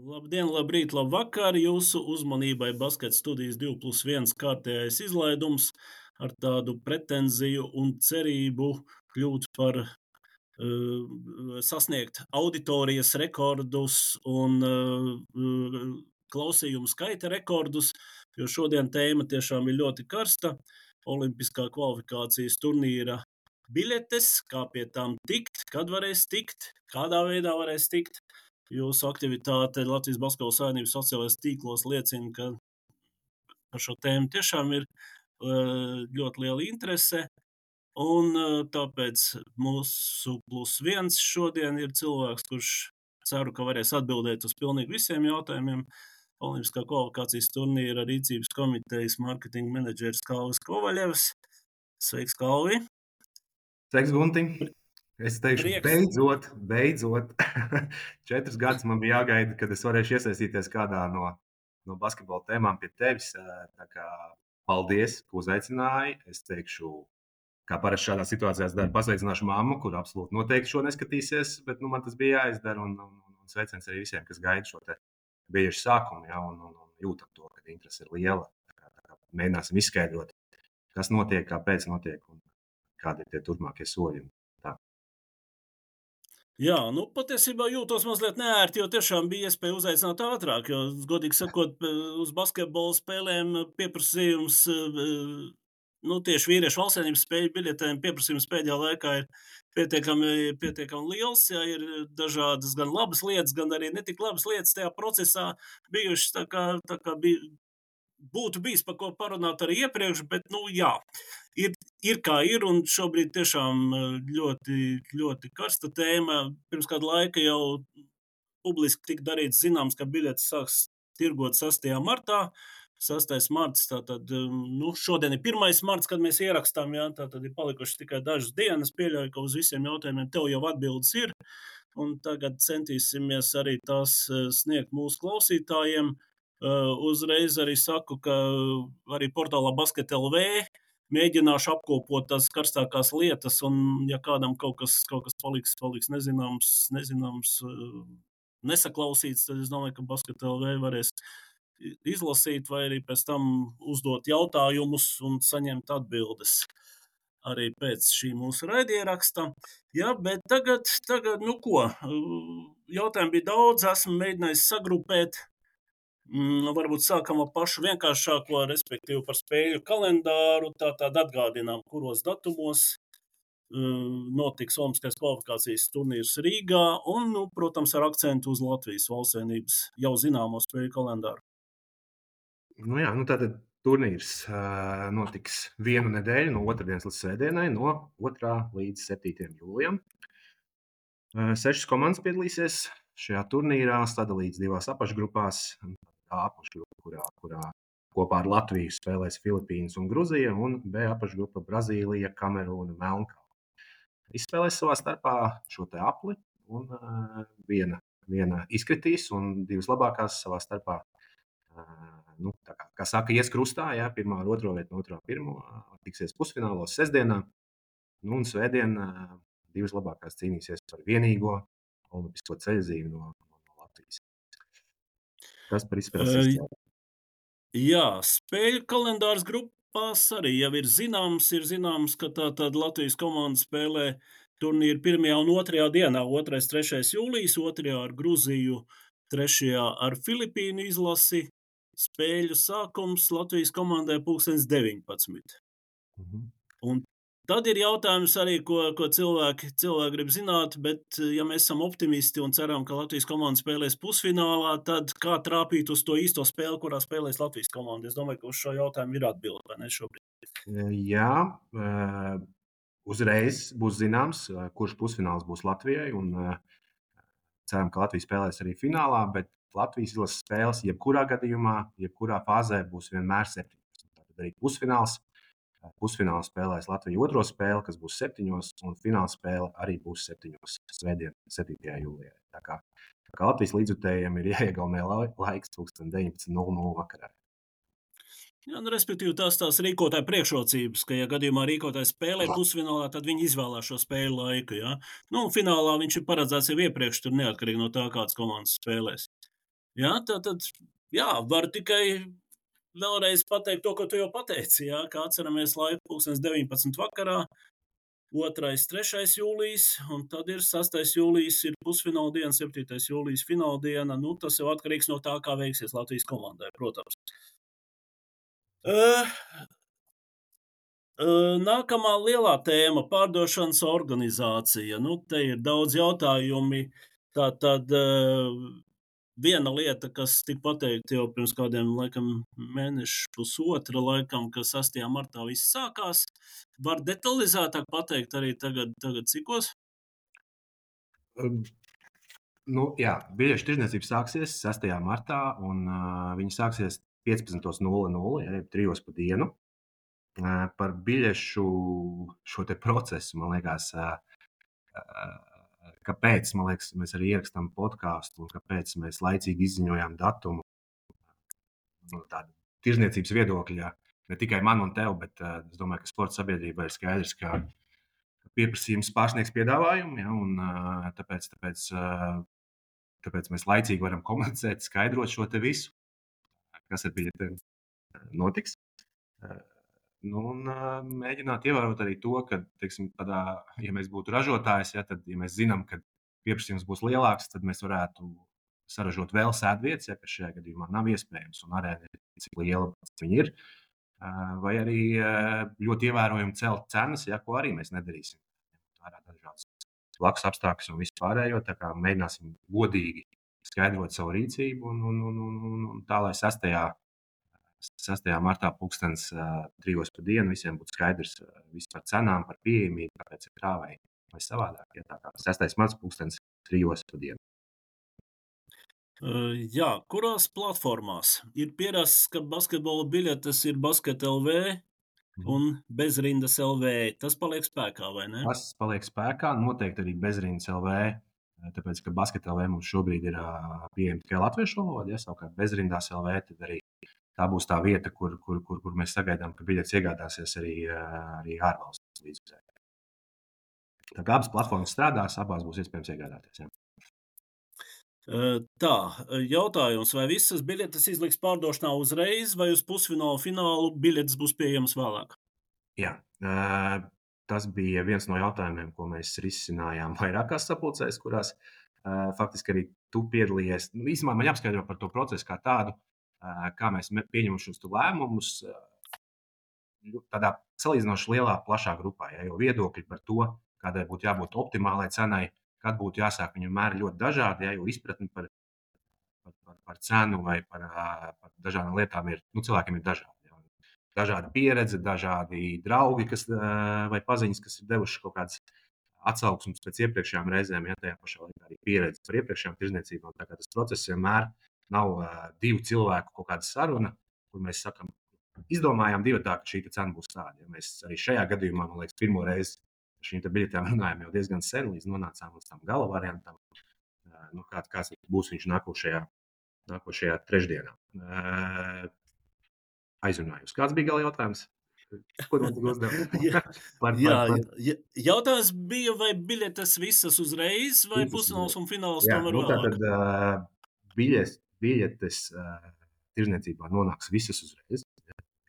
Labdien, labrīt, labvakar! Jūsu uzmanībai Basket studijas 2+1 kārtējais izlaidums ar tādu pretenziju un cerību kļūt par sasniegt auditorijas rekordus un klausījumu skaita rekordus, jo šodien tēma tiešām ir ļoti karsta. Olimpiskā kvalifikācijas turnīra biļetes, kā pie tām tikt, kad varēs tikt, kādā veidā varēs tikt. Jūsu aktivitāte Latvijas Basketbola Savienības sociālajos tīklos liecina, ka par šo tēmu tiešām ir ļoti liela interese. Un tāpēc mūsu +1 šodien ir cilvēks, kurš ceru, ka varēs atbildēt uz pilnīgi visiem jautājumiem. Olimpiskā kvalifikācijas turnīra rīcības komitejas mārketinga menedžeris Kalvis Kovaļevs. Sveiks, Kalvi! Sveiks, Gunti! Es teikšu, beidzot. 4 gadus man bija jāgaida, kad es varēšu iesaistīties kādā no basketbola tēmām pie tevis. Tā kā paldies, ka uzaicināji. Es teikšu, kā parasti šādā situācijā daru, pasveicināšu mammu, kur absolūti noteikti šo neskatīsies, bet man tas bija jāizdara. Un sveiciens arī visiem, kas gaida šo te biežu sākumu, ja, un jūtam to, ka interese ir liela. Tā kā mēģināsim izskaidrot, kas notiek, kāpēc notiek un kādi ir tie turpmākie soļi. Jā, patiesībā jūtos mazliet neērti, jo tiešām bija iespēja uzaicināt ātrāk, jo, godīgi sakot, uz basketbola spēlēm pieprasījums, tieši vīriešu valstsvienības spēļu biļetēm pieprasījums pēdējā laikā ir pietiekami liels, ja ir dažādas gan labas lietas, gan arī netik labas lietas tajā procesā bijušas, tā kā būtu bijis par ko parunāt arī iepriekš, bet, jā, ir kā ir, un šobrīd tiešām ļoti, ļoti karsta tēma. Pirms kāda laika jau publiski tika darīts zināms, ka biļetes sāks tirgot 6. martā. 6. marts, tātad, šodien ir 1. marts, kad mēs ierakstām, jā, tātad ir palikušas tikai dažas dienas. Pieļauju, ka uz visiem jautājumiem tev jau atbildes ir, un tagad centīsimies arī tās sniegt mūsu klausītājiem. Uzreiz arī saku, ka arī portālā Basket LV mēģināšu apkopot tās karstākās lietas, un ja kādam kaut kas paliks nezināms, nesaklausīts, tad es domāju, ka Basket LV varēs izlasīt vai arī pēc tam uzdot jautājumus un saņemt atbildes arī pēc šī mūsu raidieraksta. Jā, bet tagad, jautājumu bija daudz, esmu mēģinājis sagrupēt. Varbūt sākam ar pašu vienkāršāko, respektīvi par spēļu kalendāru, tātad atgādinām, kuros datumos notiks Olimpiskās kvalifikācijas turnīrs Rīgā un, protams, ar akcentu uz Latvijas valstsvienības jau zināmo spēļu kalendāru. Tātad turnīrs notiks vienu nedēļu no otrdienas līdz svētdienai, no 2. līdz 7. jūlijam. 6 komandas piedalīsies šajā turnīrā, sadalīts 2 apakšgrupās. A apakšgrupa, kurā kopā ar Latviju spēlēs Filipīnas un Gruzija, un B apakšgrupa Brazīlija, Kamerūna, Melnkalne. Izspēlēs savā starpā šo te apli, un viena izkritīs, un 2 labākās savā starpā, kā saka, ies krustā, jā, 1. ar 2. vietu, no 2. ar 1. tiksies pusfinālos sestdienā, un svētdien 2 labākās cīnīsies par vienīgo olimpisko ceļzīmi no Latvijas. Tas par izspēles izcēlu. Jā, spēļu kalendārs grupās arī jau ir zināms, ka tātad Latvijas komanda spēlē turnīru 1. un 2. dienā, 2. 3. jūlijas, 2. ar Gruziju, 3. ar Filipīnu izlasi. Spēļu sākums Latvijas komandai 19. Un tad ir jautājums arī, ko cilvēki grib zināt, bet ja mēs esam optimisti un ceram, ka Latvijas komanda spēlēs pusfinālā, tad kā trāpīt uz to īsto spēli, kurā spēlēs Latvijas komanda? Es domāju, ka uz šo jautājumu ir atbilde, vai ne šobrīd? Jā, uzreiz būs zināms, kurš pusfināls būs Latvijai, un ceram, ka Latvija spēlēs arī finālā, bet Latvijas izlases spēles jebkurā gadījumā, jebkurā fāzē būs vienmēr 17. Tātad arī pusfināls. Pusfinālā spēlēs Latvija 2. spēli, kas būs 7. un fināla spēle arī būs 7. svētdien, 7. jūlijā. Tā kā Latvijas līdzjutējiem ir jāiegaumē laiks 19:00 vakarā. Jā, respektīvi tās rīkotāja priekšrocības, ka, ja gadījumā rīkotājs spēlē pusfinālā, tad viņi izvēlās šo spēļu laiku. Ja? Un finālā viņš ir paredzēts jau iepriekš, tur neatkarīgi no tā, kādas komandas spēlēs. Jā, tātad, jā, varu tikai vēlreiz pateikt to, ko tu jau pateici, jā, kā atceramies laiku 19 vakarā, 2. 3. jūlijas, un tad ir 6. jūlijas ir pusfināla diena, 7. jūlijas fināla diena. Nu, tas jau atkarīgs no tā, kā veiksies Latvijas komandai, protams. Nākamā lielā tēma - pārdošanas organizācija. Nu, te ir daudz jautājumi. Tātad viena lieta, kas tika pateikta jau pirms kādiem laikam mēnešu, pusotra laikam, ka 6. martā viss sākās. Var detalizētāk pateikt arī tagad cikos? Jā, biļešu tirdzniecība sāksies 6. martā, un viņa sāksies 15:00, ja 3 pa dienu. Par biļešu šo te procesu, man liekas, kāpēc mēs arī ierakstām podkāstu un kāpēc mēs laicīgi izziņojām datumu no tāda tirdzniecības viedokļa. Ne tikai man un tev, bet es domāju, ka sporta sabiedrībai ir skaidrs, ka pieprasījums pārsniegs piedāvājumu, ja, un tāpēc mēs laicīgi varam komunicēt, skaidrot šo te visu, kas ar biļetēm notiks. Mēģināt ievērot arī to, ka, teiksim, ja mēs būtu ražotājs, ja, tad, ja mēs zinām, ka pieprasījums būs lielāks, tad mēs varētu saražot vēl sēdvietas, ja, kas šajā gadījumā nav iespējams, un arēna ir cik liela viņa ir. Vai arī ļoti ievērojami celt cenas, ja, ko arī mēs nedarīsim. Vērā dažādas blakus apstākļus un visu pārējo, tā kā mēģināsim godīgi skaidrot savu rīcību un tā, lai 6. martā 3:00 pa dienu visiem būtu skaidrs viss par cenām, par pieejamību, kāpēc ir tā vai savādāk. Ja, tā kā 6. marts 3:00 pa dienu. Jā, kurās platformās ir pierasts, ka basketbola biļetes ir Basket LV un Bezrindas LV? Tas paliek spēkā, vai ne? Tas paliek spēkā, noteikti arī Bezrindas LV, tāpēc, ka Basket LV mums šobrīd ir pieejama tikai latviešu valodā, ja, savukārt Bezrindas LV, tad arī tā būs tā vieta, kur mēs sagaidām, ka biļetes iegādāsies arī ārvalstu līdzekļi. Tā kā abas platformas strādās, abās būs iespējams iegādāties. Ja. Tā, jautājums, vai visas biļetes izliks pārdošanā uzreiz, vai uz pusfinālu, finālu biļetes būs pieejamas vēlāk? Jā, tas bija viens no jautājumiem, ko mēs risinājām vairākās sapulcēs, kurās faktiski arī tu piedalījies. Īsumā man jāapskaidro par to procesu kā tādu, kā mēs pieņemam šos lēmumus tādā salīdzinoši lielā, plašā grupā. Ja, jo viedokļi par to, kādai būtu jābūt optimālai cenai, kad būtu jāsāk, viņu mēri ļoti dažādi, ja, jo izpratni par cenu vai par dažādām lietām ir, cilvēkiem ir dažādi. Ja. Dažāda pieredze, dažādi draugi vai paziņas, kas ir devuši kaut kādas atsauksmes pēc iepriekšējām reizēm, ja tajā pašā laikā arī pieredze par iepriekšējām tirdzniecībām. Tā kā tas process vienmēr nav divu cilvēku kaut kāda saruna, kur mēs sakam, izdomājām divatā, ka šī cena būs tāda. Ja mēs arī šajā gadījumā, man liekas, pirmo reizi par šīm biļetēm runājam jau diezgan sen, līdz nonācām līdz tam gala variantam. Kāds būs viņš nākošajā trešdienā. Aizrunājums. Kāds bija gala jautājums? Ko man tik uzdeva? Jautājums bija, vai biļetes visas uzreiz, vai pusfināls un fināls tomēr vēlāk? Tātad biļetes tirdzniecībā nonāks visas uzreiz.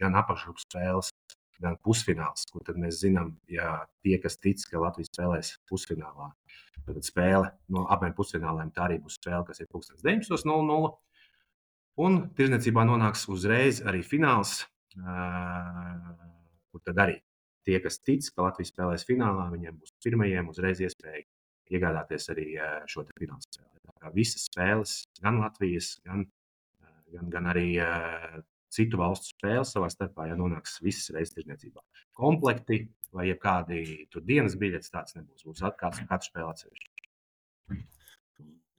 Gan apakšgrupas spēles, gan pusfināls, kur tad mēs zinām, ja tie, kas tic, ka Latvija spēlēs pusfinālā, tad spēle no abiem pusfināliem, tā arī būs spēle, kas ir 19:00. Un tirdzniecībā nonāks uzreiz arī fināls, kur tad arī tie, kas tic, ka Latvija spēlēs finālā, viņiem būs pirmajiem uzreiz iespēja iegādāties arī šo te fināla spēli. Tā kā visas spēles, gan Latvijas, gan arī citu valstu spēles savā starpā, ja nonāks visas reizes tirdzniecībā. Komplekti vai jebkādi tur dienas biļetes tāds nebūs. Būs katru spēli atsevišķi.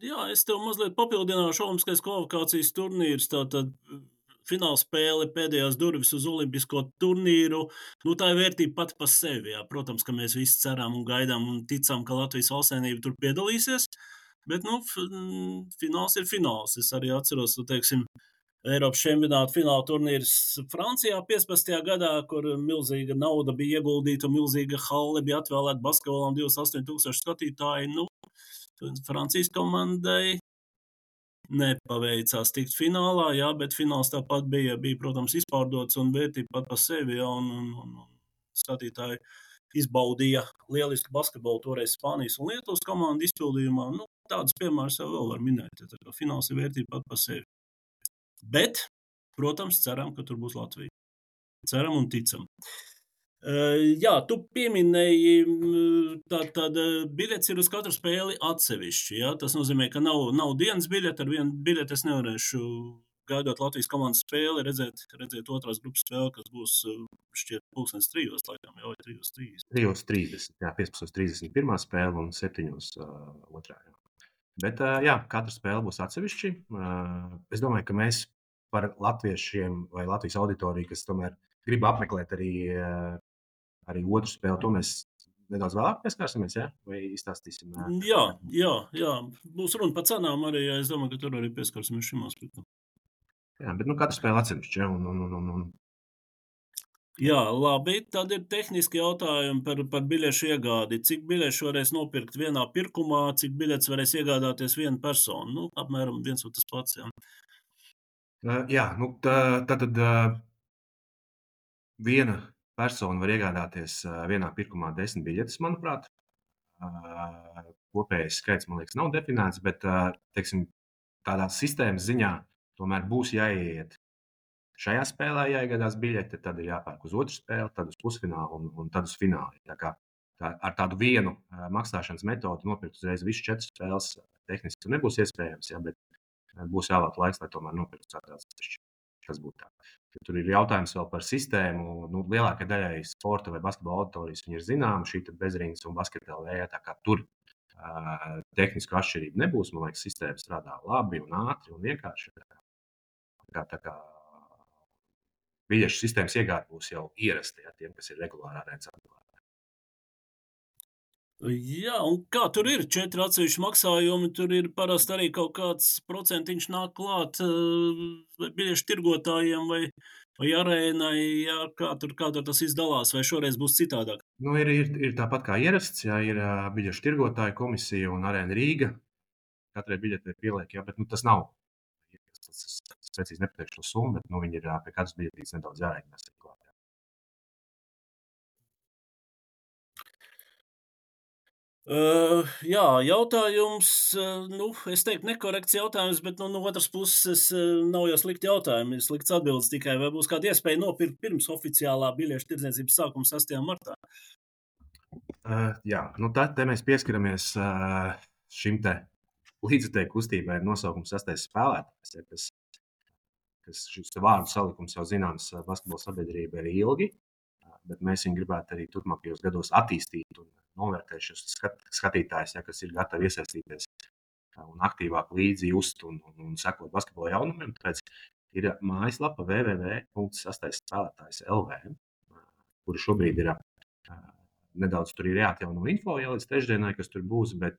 Jā, es tev mazliet papildināšu olimpiskais kvalifikācijas turnīrs. Tātad fināla spēle, pēdējās durvis uz olimpisko turnīru. Tā ir vērtība pati par sevi. Jā. Protams, ka mēs visi ceram un gaidām un ticam, ka Latvijas valstsvienība tur piedalīsies. Bet fināls ir fināls. Es arī atceros, teiksim, Eiropas čempionāta fināla turnīrs Francijā 15. gadā, kur milzīga nauda bija ieguldīta un milzīga halle bija atvēlēta basketbolam 28,000 skatītāji. Francijas komandai nepaveicās tikt finālā, jā, bet fināls tāpat bija, protams, izpārdots un vērtība pat pa sevi, jā, un skatītāji izbaudīja lielisku basketbolu toreiz Spānijas un Lietuvas komandu izpildījumā. Nu, tādas piemēras jau vēl var minēt, ja tā kā fināls ir vērtība pat pa sevi. Bet, protams, ceram, ka tur būs Latvija. Ceram un ticam. Jā, tu pieminēji, tātad biļets ir uz katru spēli atsevišķi. Jā? Tas nozīmē, ka nav dienas biļete. Ar vienu biļeti es nevarēšu, gaidot Latvijas komandas spēli, redzēt otrās grupas spēli, kas būs šķiet 3:00, laikam, jau 3:30. 3:30, jā, 15:30 pirmā spēle un 7:00 otrā. Jā. Bet, jā, katra spēle būs atsevišķi. Es domāju, ka mēs par latviešiem vai Latvijas auditoriju, kas tomēr grib apmeklēt arī otru spēli, to mēs nedaudz vēlāk pieskārsimies, ja? Vai izstāstīsim? Jā. Būs runa par cenām arī, ja es domāju, ka tur arī pieskarsimies šim aspektam. Jā, bet katra spēle atsevišķi, ja? Un... Jā, labi, tad ir tehniski jautājumi par biļešu iegādi. Cik biļešu varēs nopirkt vienā pirkumā, cik biļetes varēs iegādāties viena persona? Nu, apmēram viens un tas pats, jā. Jā, tad viena persona var iegādāties vienā pirkumā 10 biļetes, manuprāt. Kopējais skaits, man liekas, nav definēts, bet, teiksim, tādā sistēmas ziņā tomēr būs jāiet. Šajā spēlē jāiegādās biļete, tad ir jāpērk uz otru spēli, tad uz pusfinālu un tad uz finālu. Tā kā ar tādu vienu maksāšanas metodu nopirkt uzreiz visas 4 spēles tehniski nebūs iespējams, ja, bet būs jāvēlēt laiks, lai tomēr nopirktu ceturtās atsevišķi. Tas būtu tā. Ja tur ir jautājums vēl par sistēmu. Nu, lielākai daļai sporta vai basketbola auditorijas viņi ir zināma, šī bezrīnas un basketbola vējā, tā kā tur tehnisku atšķirību nebūs. Man liekas, sistēma strādā labi un ātri un vienkārši. Tā kā biļešu sistēmas iegāde būs jau ierasta, ja, tiem, kas ir regulāri arēnas apmeklētāji. Jā, un kā tur ir 4 atsevišķi maksājumi, tur ir parasti arī kaut kāds procentiņš nāk klāt biļešu tirgotājiem vai arēnai, jā, kā tur tas izdalās, vai šoreiz būs citādāk? Nu, ir tāpat kā ierasts, jā, ir biļešu tirgotāju komisija un arēna Rīga. Katrai biļetei pieliek, jā, bet tas nav. Es precīzi nepateikšu to summu, bet viņi ir pie katras biļetītes nedaudz jārēķinās. Jā, jautājums, es teiktu nekorekts jautājums, bet no otras puses nav jau slikti jautājumi, ir slikts atbildes tikai, vai būs kāda iespēja nopirkt pirms oficiālā biļešu tirdzniecības sākuma 6. martā? Jā, te mēs pieskaramies šim te līdzutēju kustībai ar nosaukumu 6. spēlētājs, ja, kas šis vārdu salikums jau zināms basketbola sabiedrība ir ilgi, bet mēs viņu gribētu arī turpmākajos gados attīstīt un novērtēt šos skatītājus, ja, kas ir gatavi iesaistīties un aktīvāk līdzi just un sekot basketbola jaunumiem. Tāpēc ir mājaslapa www.6spēlētājs.lv, kura šobrīd ir nedaudz tur ir jāatjauno info, ja līdz trešdienai, kas tur būs, bet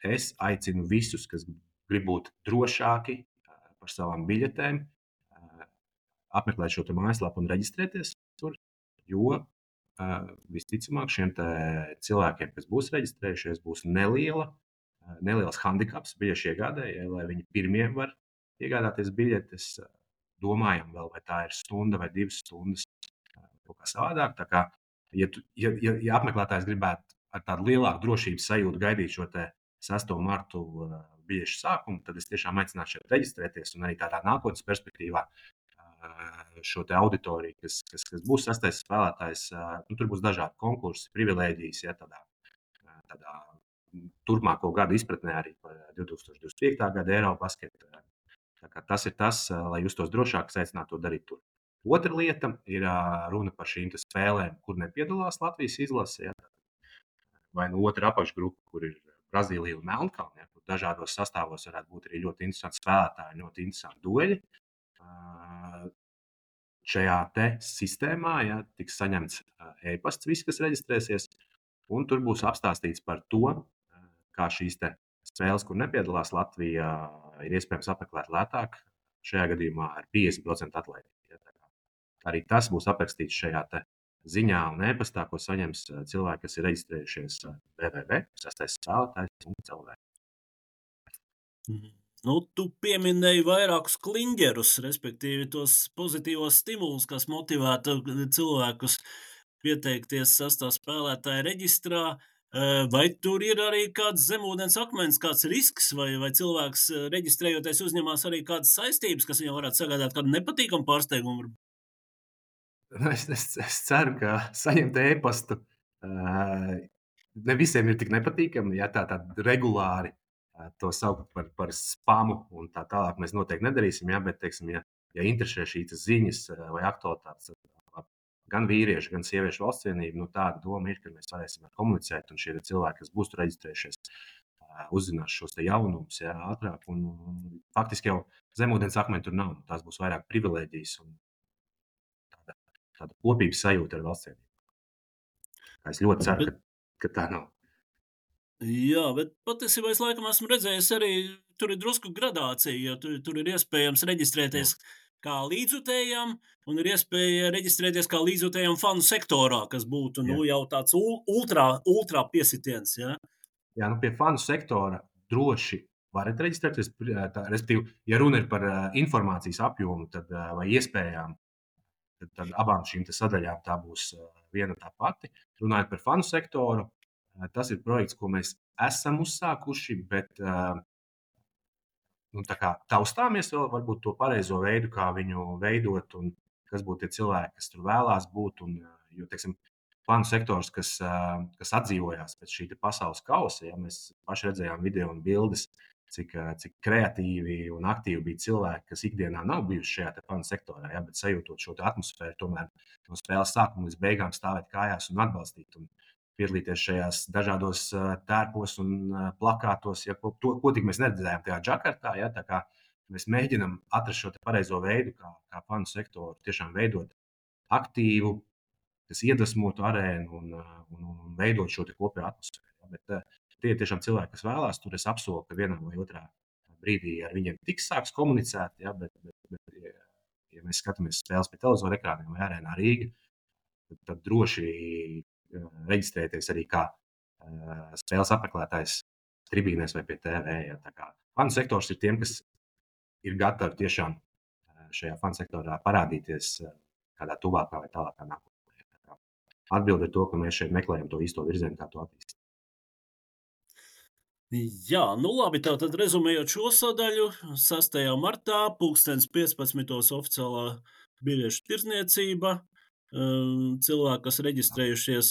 es aicinu visus, kas grib būt drošāki par savām biļetēm, apmeklēt šo mājaslapu un reģistrēties tur, jo visticamāk šiem cilvēkiem, kas būs reģistrējušies, būs neliels handikaps biļešu iegādēji, lai viņi pirmie var iegādāties biļetes. Domājam vēl, vai tā ir stunda vai 2 stundas, kaut kā savādāk. Tā kā, ja apmeklētājs gribētu ar tādu lielāku drošības sajūtu gaidīt šo 6. martu biļešu sākumu, tad es tiešām aicinātu šeit reģistrēties un arī tādā nākotnes perspektīvā šo auditoriju, kas būs 6. spēlētājs. Tur būs dažādi konkursi, privilēģijas, ja, tādā turpmāko gadu izpratnē arī par 2025. gada Eirobasketu. Tas ir tas, lai justos drošāk, aicinātu to darīt tur. Otra lieta ir runa par šīm spēlēm, kur nepiedalās Latvijas izlase. Ja, vai otra apakšgrupa, kur ir Brazīlija un Melnkalne, ja, kur dažādos sastāvos varētu būt arī ļoti interesanti spēlētāji, ļoti interesanti dueļi. Šajā sistēmā, ja, tiks saņemts e-pasts visi, kas reģistrēsies, un tur būs apstāstīts par to, kā šīs spēles, kur nepiedalās Latvijā, ir iespējams apmeklēt lētāk, šajā gadījumā ar 50% atlaidi. Ja, arī tas būs aprakstīts šajā ziņā un e-pastā, ko saņems cilvēki, kas ir reģistrējušies www.6spēlētājs.lv. Nu, tu pieminēji vairākus kliņģerus, respektīvi tos pozitīvos stimulus, kas motivētu cilvēkus pieteikties sastā spēlētāja reģistrā. Vai tur ir arī kāds zemūdens akmens, kāds risks, vai cilvēks reģistrējoties uzņemās arī kādas saistības, kas viņam varētu sagādāt kādu nepatīkamu pārsteigumu? Es ceru, ka saņemt e-pastu ne visiem ir tik nepatīkami, ja tā regulāri to saukt par spamu un tā tālāk mēs noteikti nedarīsim, ja, bet, teiksim, ja interesē šīs ziņas vai aktualitātes gan vīriešu, gan sieviešu valsts cienību, tāda doma ir, ka mēs varēsim komunicēt, un šie cilvēki, kas būs tur reģistrējušies, uzzinās šos jaunumus ātrāk. Un faktiski jau zemūdens akmeņi tur nav. Tās būs vairāk privilēģijas un tāda kopības sajūta ar valsts cienību. Es ļoti ceru, ka tā nav. Jā, bet patiesībā es laikam esmu redzējis arī, tur ir drusku gradācija, jo tur ir iespējams reģistrēties kā līdzjutējam, un ir iespēja reģistrēties kā līdzjutējam fanu sektorā, kas būtu jau tāds ultrā piesitiens. Ja? Jā, pie fanu sektora droši varat reģistrēties. Respektīvi, ja runa ir par informācijas apjomu vai iespējām, tad abām šīm sadaļām tā būs viena tā pati. Runājot par fanu sektoru, tas ir projekts, ko mēs esam uzsākuši, bet taustāmies vēl varbūt to pareizo veidu, kā viņu veidot un kas būtu tie cilvēki, kas tur vēlās būt. Jo, teiksim, fanu sektors, kas atdzīvojās pēc šī pasaules kausa, mēs paši redzējām video un bildes, cik kreatīvi un aktīvi bija cilvēki, kas ikdienā nav bijuši šajā fanu sektorā, bet sajūtot šo atmosfēru, tomēr no spēles sākuma līdz beigām stāvēt kājās un atbalstīt. Un piedalīties šajās dažādos tērpos un plakātos, ko tik mēs neredzējām tajā Džakartā. Tā kā mēs mēģinām atrast šo pareizo veidu, kā fanu sektoru tiešām veidot aktīvu, kas iedvesmotu arēnu un veidot šo kopējo atmosfēru. Bet tie ir tiešām cilvēki, kas vēlās. Tur es apsolu, ka vienā vai otrā brīdī ar viņiem tiks sāks komunicēt. Bet ja mēs skatāmies spēles pie televizora ekrāniem vai arēnā Rīga, tad droši reģistrēties arī kā spēles apmeklētājs tribīnēs vai pie TV. Fanu sektors ir tiem, kas ir gatavi tiešām šajā fanu sektorā parādīties kādā tuvākā vai tālākā nākotnē. Atbilde ir to, ka mēs šeit meklējam to īsto virzienu, kā to attīstīt. Jā, labi, tātad rezumējot šo sadaļu, 6. martā 15:00 oficiālā biļešu tirdzniecība. Cilvēki, kas reģistrējušies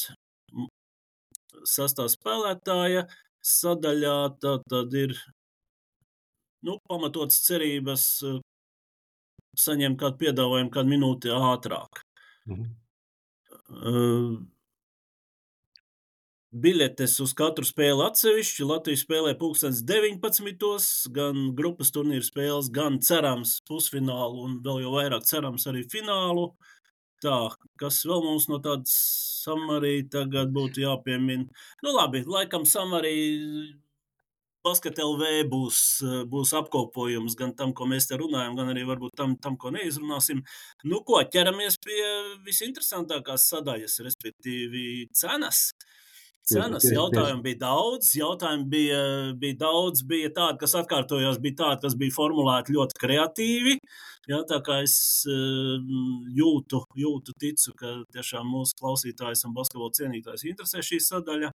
sastā spēlētāja sadaļā, tad ir pamatotas cerības saņemt kādu piedāvājumu kādu minūti ātrāk. Biļetes uz katru spēli atsevišķi. Latvija spēlē 19:00, gan grupas turnīra spēles, gan cerams pusfinālu un vēl jau vairāk cerams arī finālu. Tā, kas vēl mums no tādas Samarī tagad būtu jāpiemina? Labi, laikam Samarī Basket LV būs apkopojums gan tam, ko mēs te runājam, gan arī varbūt tam ko neizrunāsim. Ko, ķeramies pie visinteresantākās sadaļas, respektīvi cenas. Cenas jautājumi bija daudz, bija tādi, kas atkārtojās, bija tādi, kas bija formulēti ļoti kreatīvi. Tā kā es ticu, ka tiešām mūsu klausītājs un basketbola cienītājs interesē šī sadaļa.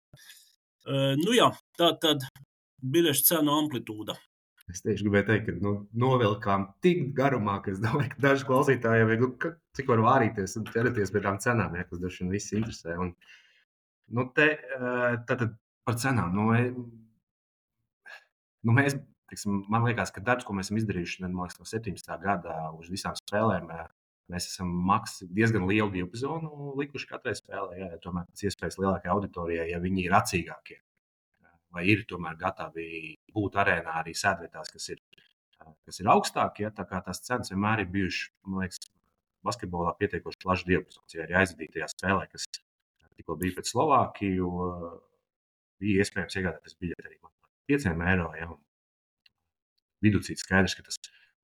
Tā tad biļešu cenu amplitūda. Es tieši gribēju teikt, ka novilkām tik garumā, ka es domāju, ka daži klausītāji jau ir, cik var vārīties un ķerties pie tām cenām, kas daži vien visi interesē. Tātad par cenām. Mēs, man liekas, ka darbs, ko mēs esam izdarījuši no 17. gada uz visām spēlēm, mēs esam diezgan lielu diapazonu likuši katrai spēlē. Tomēr pēc iespējas lielākai auditorijai, ja viņi ir acīgākie, vai ir tomēr gatavi būt arēnā arī sēdvietās, kas ir augstākie. Tā kā tās cenas vienmēr ir bijušas, man liekas, basketbolā pietiekoši plašs diapazons. Ja arī aizvadītajā spēlē, kas tikko bija pret Slovākiju, bija iespējams iegādāties biļeti arī €5. Ja, viducīt skaidrs, ka tas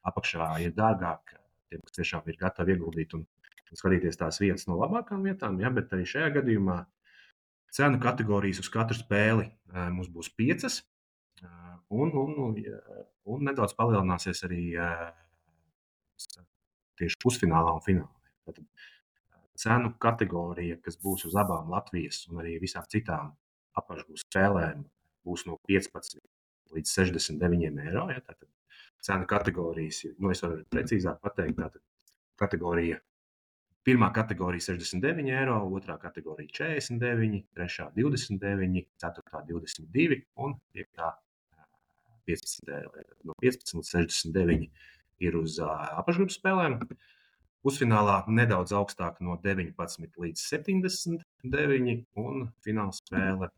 apakšā ir dārgāk tiem, kas tiešām ir gatavi ieguldīt un skatīties tās vienas no labākām vietām. Ja, bet arī šajā gadījumā cenu kategorijas uz katru spēli mums būs 5. Un nedaudz palielināsies arī tieši pusfinālā un finālā. Tātad cenu kategorija, kas būs uz abām Latvijas un arī visām citām apakšgūs spēlēm, būs no 15 līdz 69 eiro. Ja? Tātad cenu kategorijas, es varu precīzāk pateikt, tātad kategorija. Pirmā kategorija 69 eiro, otrā kategorija 49, trešā 29, ceturtā 22 un piektā 15 eiro. No 15 līdz 69 ir uz apakšgrupas spēlēm. Pusfinālā nedaudz augstāk no 19 līdz 79 un fināla spēle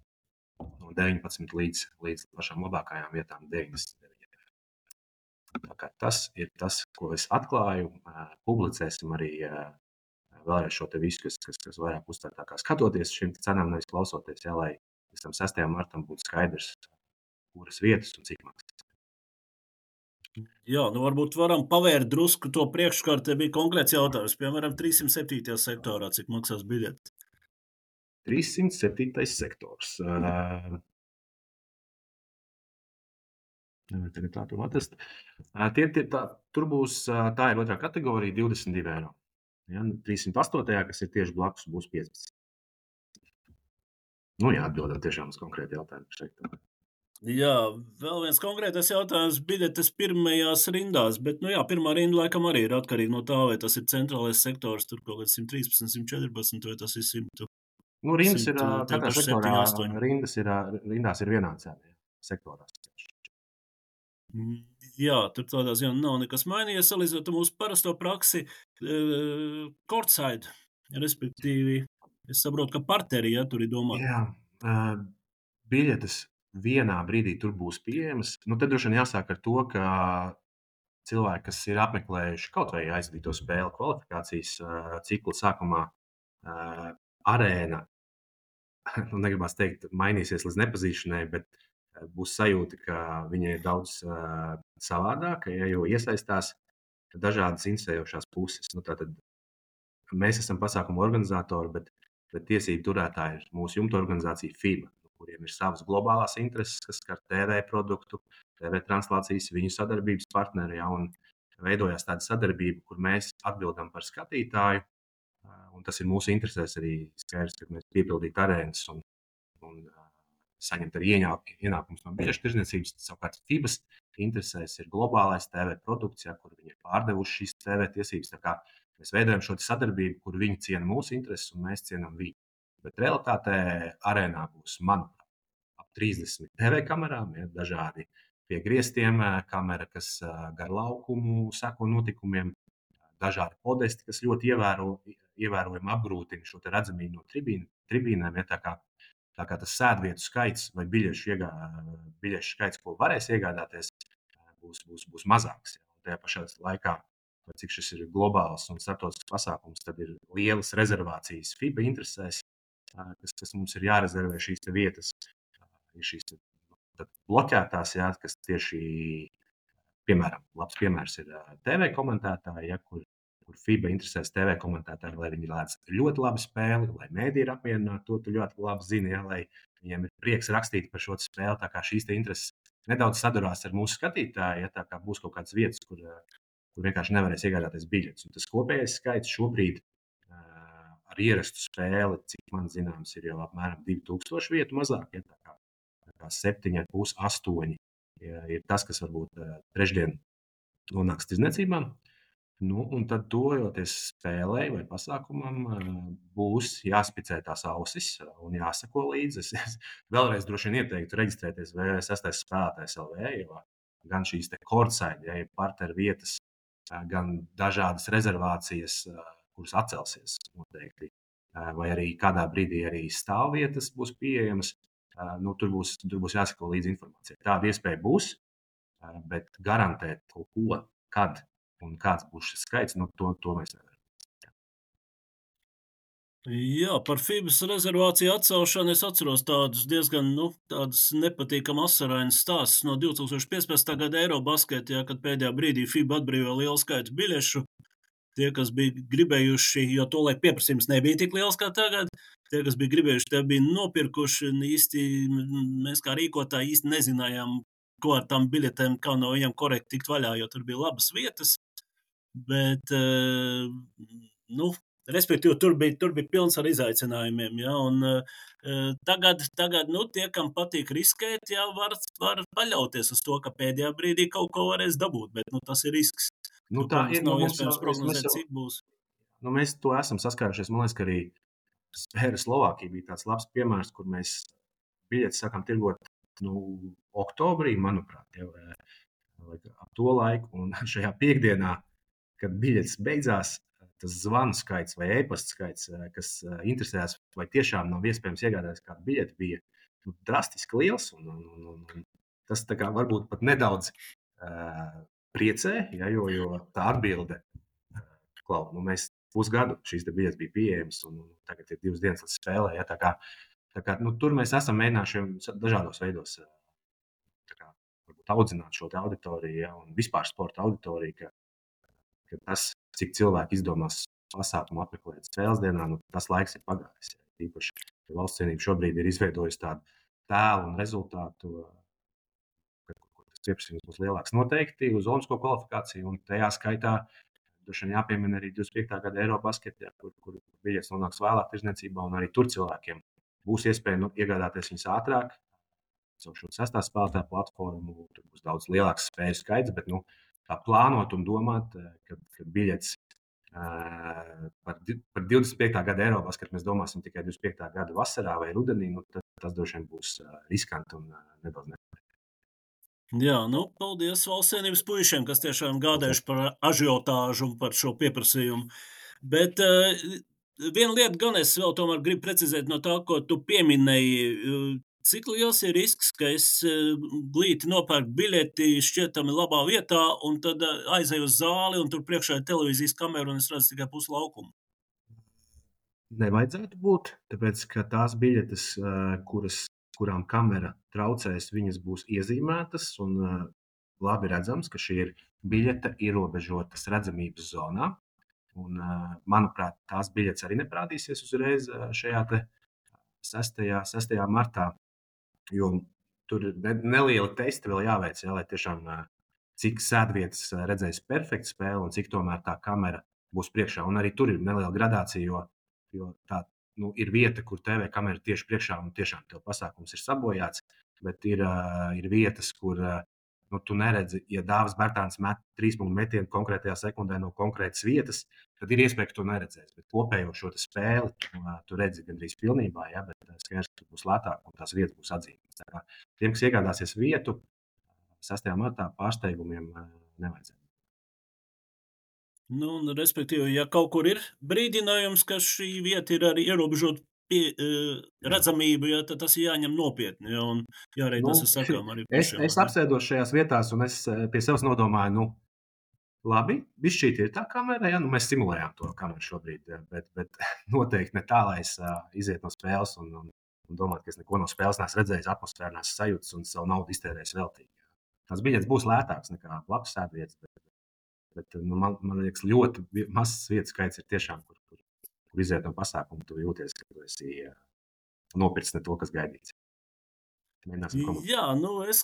no 19 līdz pašām labākajām vietām 99. Tā kā tas ir tas, ko es atklāju. Publicēsim arī vēlreiz šo te visu, kas vairāk uztvērtākā skatoties šīm cenām, nevis klausoties, ja, lai pēc tam 6. martam būtu skaidrs, kuras vietas un cik maksas. Jā, varbūt varam pavērt drusku to priekškārt. Te bija konkrēts jautājums, piemēram, 307. sektorā, cik maksās biļeti? 307. sektors. Tagad tā to atrast. Tur būs, tā ir otrā kategorija, 22 eiro. Ja, 308. kas ir tieši blakus, būs 15. Atbildam tiešām uz konkrētu jautājumu sektoru. Jā, vēl viens konkrētais jautājums. Biļetes pirmajās rindās, bet, pirmā rinda laikam arī ir atkarīga no tā, vai tas ir centrālais sektors, tur kaut kāds 113, 114, vai tas ir 100. Rindas ir, katrā sektorā rindās ir vienāds sektorās. Jā, tur tādā ziņā nav nekas mainījies, salīdzinot mūsu parasto praksi, courtside, respektīvi, es saprotu, ka parteri, tur ir domāts. Jā, biļetes vienā brīdī tur būs pieejamas. Tad droši vien jāsāk ar to, ka cilvēki, kas ir apmeklējuši kaut vai aizvadīto spēli kvalifikācijas cikla sākumā, arēna, negribas teikt, mainīsies līdz nepazīšanai, bet būs sajūta, ka viņa ir daudz savādāka, jo iesaistās dažādas interesējošās puses. Tātad mēs esam pasākumu organizatori, bet tiesību turētāji ir mūsu jumta organizācija FIBA, kuriem ir savas globālās intereses, kas skar TV produktu, TV translācijas, viņu sadarbības partneri, un veidojās tāda sadarbība, kur mēs atbildam par skatītāju, un tas ir mūsu interesēs arī skaidrs, ka mēs piepildītu arēnas un saņemt arī ienākumus no biļešu tirdzniecības. Savukārt FIBAs interesēs ir globālais TV produkts, kur viņi ir pārdevuši šīs TV tiesības. Tā kā mēs veidojam šo sadarbību, kur viņi ciena mūsu intereses un mēs cienam viņu. Bet realitātē arēnā būs, manuprāt, ap 30 TV kamerām, dažādi pie griestiem kamera, kas gar laukumu seko notikumiem, dažādi podesti, kas ļoti ievērojami apgrūtina šo redzamību no tribīnēm. Tā kā tas sēdvietu skaits vai biļešu skaits, ko varēs iegādāties, būs mazāks. Tajā pašā laikā, cik šis ir globāls un starptautisks pasākums, tad ir lielas rezervācijas FIBA interesēs, kas mums ir jārezervē šīs vietas. Ir šīs bloķētās, kas tieši, piemēram, labs piemērs ir TV komentētāji, kur FIBA interesēs TV komentētāji, lai viņi lēdz ļoti labu spēli, lai mēdī ir apmierināti, to tu ļoti labi zini, lai viņiem ir prieks rakstīt par šo spēli. Tā kā šīs intereses nedaudz sadurās ar mūsu skatītāju, tā kā būs kaut kādas vietas, kur vienkārši nevarēs iegādāties biļetes. Un tas kopējais skaits šobrīd ar ierastu spēli, cik man zināms, ir jau apmēram 2000 vietu mazāk. Tā kā 7,5, 8 ir tas, kas varbūt trešdien nonāks tirdzniecībā. Un tad, tojoties spēlei vai pasākumam, būs jāspicē tās ausis un jāsako līdzi. Es vēlreiz droši vien ieteiktu reģistrēties VV6 spēlētājs LV, jo gan šīs courtside, parteru vietas, gan dažādas rezervācijas, kuras atcelsies noteikti, vai arī kādā brīdī arī stāvvietas būs pieejamas. Tur būs jāsako līdzi informācijai. Tāda iespēja būs, bet garantēt kaut ko, kad un kāds būs šis skaits, to mēs nevaram. Jā, par FIBAs rezervāciju atcelšanu es atceros tādus diezgan tādas nepatīkamas asarainas stāstus no 2015. gada Eirobasketā, kad pēdējā brīdī FIBA atbrīvoja lielu skaitu biļešu. Tie, kas bija gribējuši, jo tolaik pieprasījums nebija tik liels kā tagad, tie, kas bija gribējuši, tie bija nopirkuši, un īsti mēs kā rīkotāji īsti nezinājām, ko ar tām biļetēm, kā no viņiem korekti tikt vaļā, jo tur bija labas vietas. Bet, nu, respektīvi, tur bija pilns ar izaicinājumiem. Ja, un, tagad nu, tie, kam patīk riskēt, jā, var paļauties uz to, ka pēdējā brīdī kaut ko varēs dabūt. Bet nu, tas ir risks. Nu, Nu, tā ko mums ir. nav Mums iespējams jau, prognozēt, cik būs. Mēs to esam saskārušies. Man liekas, ka arī Spēra Slovākija bija tāds labs piemērs, kur mēs biļetes sākām tirgot oktobrī, manuprāt, jau ap to laiku. Un šajā piekdienā, kad biļetes beidzās, tas zvanu skaits vai e-pasta skaits, kas interesējās, vai tiešām nav iespējams iegādāties kādu biļeti, bija drastiski liels. Un tas tā kā varbūt pat nedaudz priecē, ja, jo tā atbilde, klau, mēs pusgadu šīs biļetes bija pieejamas, un tagad ir 2 dienas līdz spēlē. Ja, tā kā, tur mēs esam mēģinājuši dažādos veidos audzināt šo auditoriju, ja, un vispār sporta auditoriju, ka tas, cik cilvēki izdomās pasākumu apmeklēt spēles dienā, tas laiks ir pagājis. Ja. Īpaši Valsts cienība šobrīd ir izveidojusi tādu tēlu un rezultātu, kur tas pieprasījums būs lielāks. Noteikti uz olimpisko kvalifikāciju, un tajā skaitā droši vien jāpiemina arī 25. gada Eirobasketā, kur biļetes nonāks vēlāk tirdzniecībā, un arī tur cilvēkiem būs iespēja iegādāties viņas ātrāk. Caur šo 6. spēlētāju platformu tur būs daudz lielāks spēļu skaits, bet tā plānot un domāt, ka biļetes par 25. gada Eirobasketā mēs domāsim tikai 25. gada vasarā vai rudenī, tas droši vien būs riskanti un nedaudz nepareizi. Jā, paldies Valsts cienības puišiem, kas tiešām gādājuši par ažiotāžu un par šo pieprasījumu. Bet viena lieta gan es vēl tomēr gribu precizēt no tā, ko tu pieminēji. Cik liels ir risks, ka es glīti nopērku biļeti šķietami labā vietā un tad aizēju uz zāli un tur priekšā ir televīzijas kamera un es redzu tikai pusi laukumu? Nevajadzētu būt, tāpēc, ka tās biļetes, kurām kamera traucēs, viņas būs iezīmētas un labi redzams, ka šī ir biļete ierobežotas redzamības zonā. Un, manuprāt, tās biļetes arī neparādīsies uzreiz šajā 6. martā, jo tur ir nelieli testi vēl jāveic, lai tiešām cik sēdvietas redzēs perfektu spēli un cik tomēr tā kamera būs priekšā. Un arī tur ir neliela gradācija, jo tā ir vieta, kur TV kamera tieši priekšā un tiešām tev pasākums ir sabojāts, bet ir vietas, kur tu neredzi, ja Dāvis Bērtāns met 3-punktu metienu konkrētajā sekundē no konkrētas vietas, tad ir iespēja, ka tu neredzēsi. Bet kopējo šo spēli tu redzi gandrīz pilnībā, ja, bet skaidrs, ka būs lētāk un tās vietas būs atzīmētas. Tiem, kas iegādāsies vietu 6. martā, pārsteigumiem nevajadzētu. Respektīvi, ja kaut kur ir brīdinājums, ka šī vieta ir arī ierobežota redzamību, ja, tad tas ir jāņem nopietni. Ja, un jārēķinās ar sakām arī pašiem. Es apsēdos šajās vietās, un es pie sevis nodomāju, labi, bišķīt ir tā kamera, ja, mēs simulējām to kameru šobrīd, bet noteikti ne tā, lai es iziet no spēles un domātu, ka es neko no spēles neesmu redzējis, atmosfēru neesmu sajūtis un savu naudu iztērējis veltīgi. Tās biļetes būs lētākas nekā blakus sēdvietas, bet man liekas, ļoti mazs vietu skaits ir tiešām, kur iziet no pasākuma, tu jūties, ka tu esi nopircis ne to, kas gaidīts. Jā, es